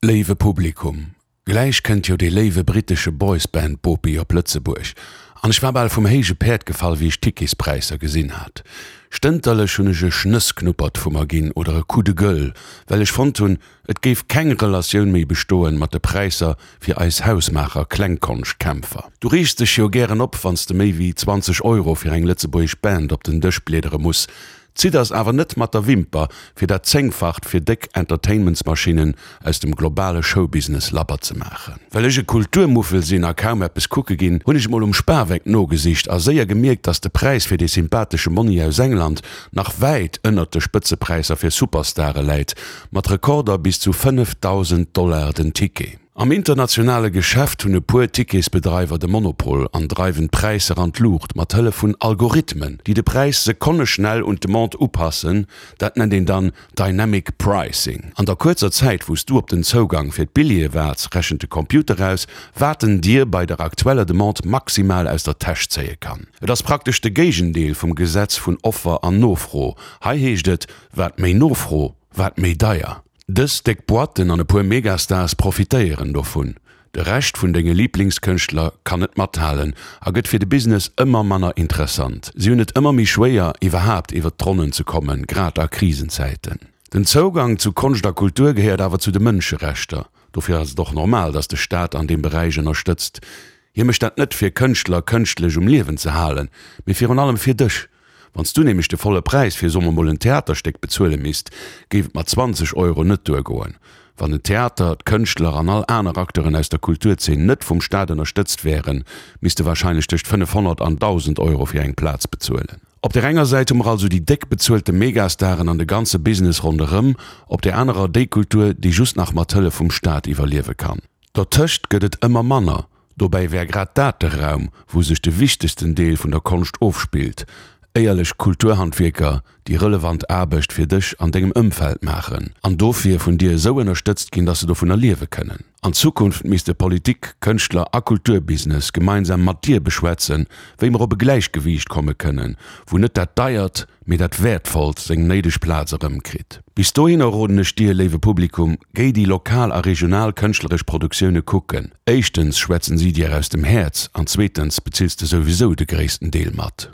Léiwe Publikum, gläich kënnt jo dee léiwe brittesche Boysband-Bopi op Lëtzebuerg an ech war bal vum héije Päerd gefall, wéi ech d'Ticketspräisser gesinn hat. Stënterlech hunn ech e Schnëssknuppert vu mer ginn oder e Coup de gueule, well ech fonnt hunn, et géif keng Relatioun méi bestoen mat de Präisser fir eis hausmaacher Klengkonschtkämpfer. Du reegs dech jo gären op, wann s de méi wéi 20 Euro fir eng lëtzebuergesch Band op den Dësch bliedere muss. Zidders awer net mat der Wimper, fir dat Zéngfacht fir déck Entertainmentsmaschinnen aus dem globale Showbusiness labber ze maachen. Well ech e Kulturmuffel sinn a kaum eppes kucke ginn, hunn ech mol um Spaweck nogesicht a séier gemierkt, dass de Präis fir dee sympathesche Monni aus England nach wäit ënnert de Spëtzepräisser fir Superstare läit, mat Rekorder bis zu 5.000 Dollar den Ticket. Am internationale Geschäft hunn e puer Ticketsbedreiwer de Monopol an dreiwen d'Präisser an d'Luucht mat Hëllef vun Algorithmen, déi de Präis sekonneschnell un d'Demande upassen. Dat nennt een dann Dynamic Pricing. An der kuerzer Zäit, wou s du op den Zougang fir d'Billjeeë waarts, rechent de Computer aus, wat en dir bei der aktueller Demande maximal aus der Täsch zéie kann. Et ass praktesch de Géigendeel vum Gesetz vun Offer an Nofro. Hei heescht et, wat méi Nofro, wat méi deier. Dës déck Boîten an e puer Megastars profitéieren dovun. De Rescht vun denge Liiblingskënschtler kann net mathalen a gëtt fir de Business ëmmer manner interessant. Si hunn et ëmmer méi schwéier, iwwerhaapt iwwer d'Ronnen ze kommen, grad a Krisenzäiten. Den Zougang zu Konscht a Kultur gehéiert awer zu de Mënscherechter. Dofir ass et och normal, datt de Staat an deem Beräich ënnerstëtzt. Hie mécht dat net fir Kënschtler kënschtlech um Liewen ze halen, mee virun allem fir dech. Wann s du nämlech de volle Präis fir, soe mer mol, en Theaterstéck bezuele misst, géif et mat 20 Euro net duergoen. Wann den Theater, d'Kënschtler an all aner Acteuren aus der Kulturzeen net vum Staat ënnerstëtzt wären, misste warscheinlech tëscht 500 an 1.000 Euro fir eng Plaz bezuelen. Op där enger Säit hu mer also déi déck bezuelte Megastaren an de ganze Business ronderëm, op där anerer déi Kultur, déi just nach mat Hëllef vum Staat iwwerliewe kann. Dertëscht gëtt et ëmmer manner. Dobäi wär grad dat de Raum, wou sech de wichtegsten Deel vun der Konscht ofspillt, éierlech Kulturhandwierker, déi relevant Aarbecht fir dech an dengem Ëmfeld maachen an dofir vun dir esou ënnerstëtzt ginn, dass se dovunner liewe kënnen. An Zukunft misste Politik, Kënschtler a Kulturbusiness gemeinsam mat dir beschwätzen, wéi mer op e Gläichgewiicht komme kënnen, wou net dat Deiert, mee dat Wäertvollt seng néideg Plaz erëmkritt. Bis dohinner roden ech dir, léiwe Publikum, géi déi lokal a regional kënschtleresch Produktioune kucken. Éischtens schwätzen si dir aus dem Häerz an zweetens bezills de souwisou de gréissten Deel mat.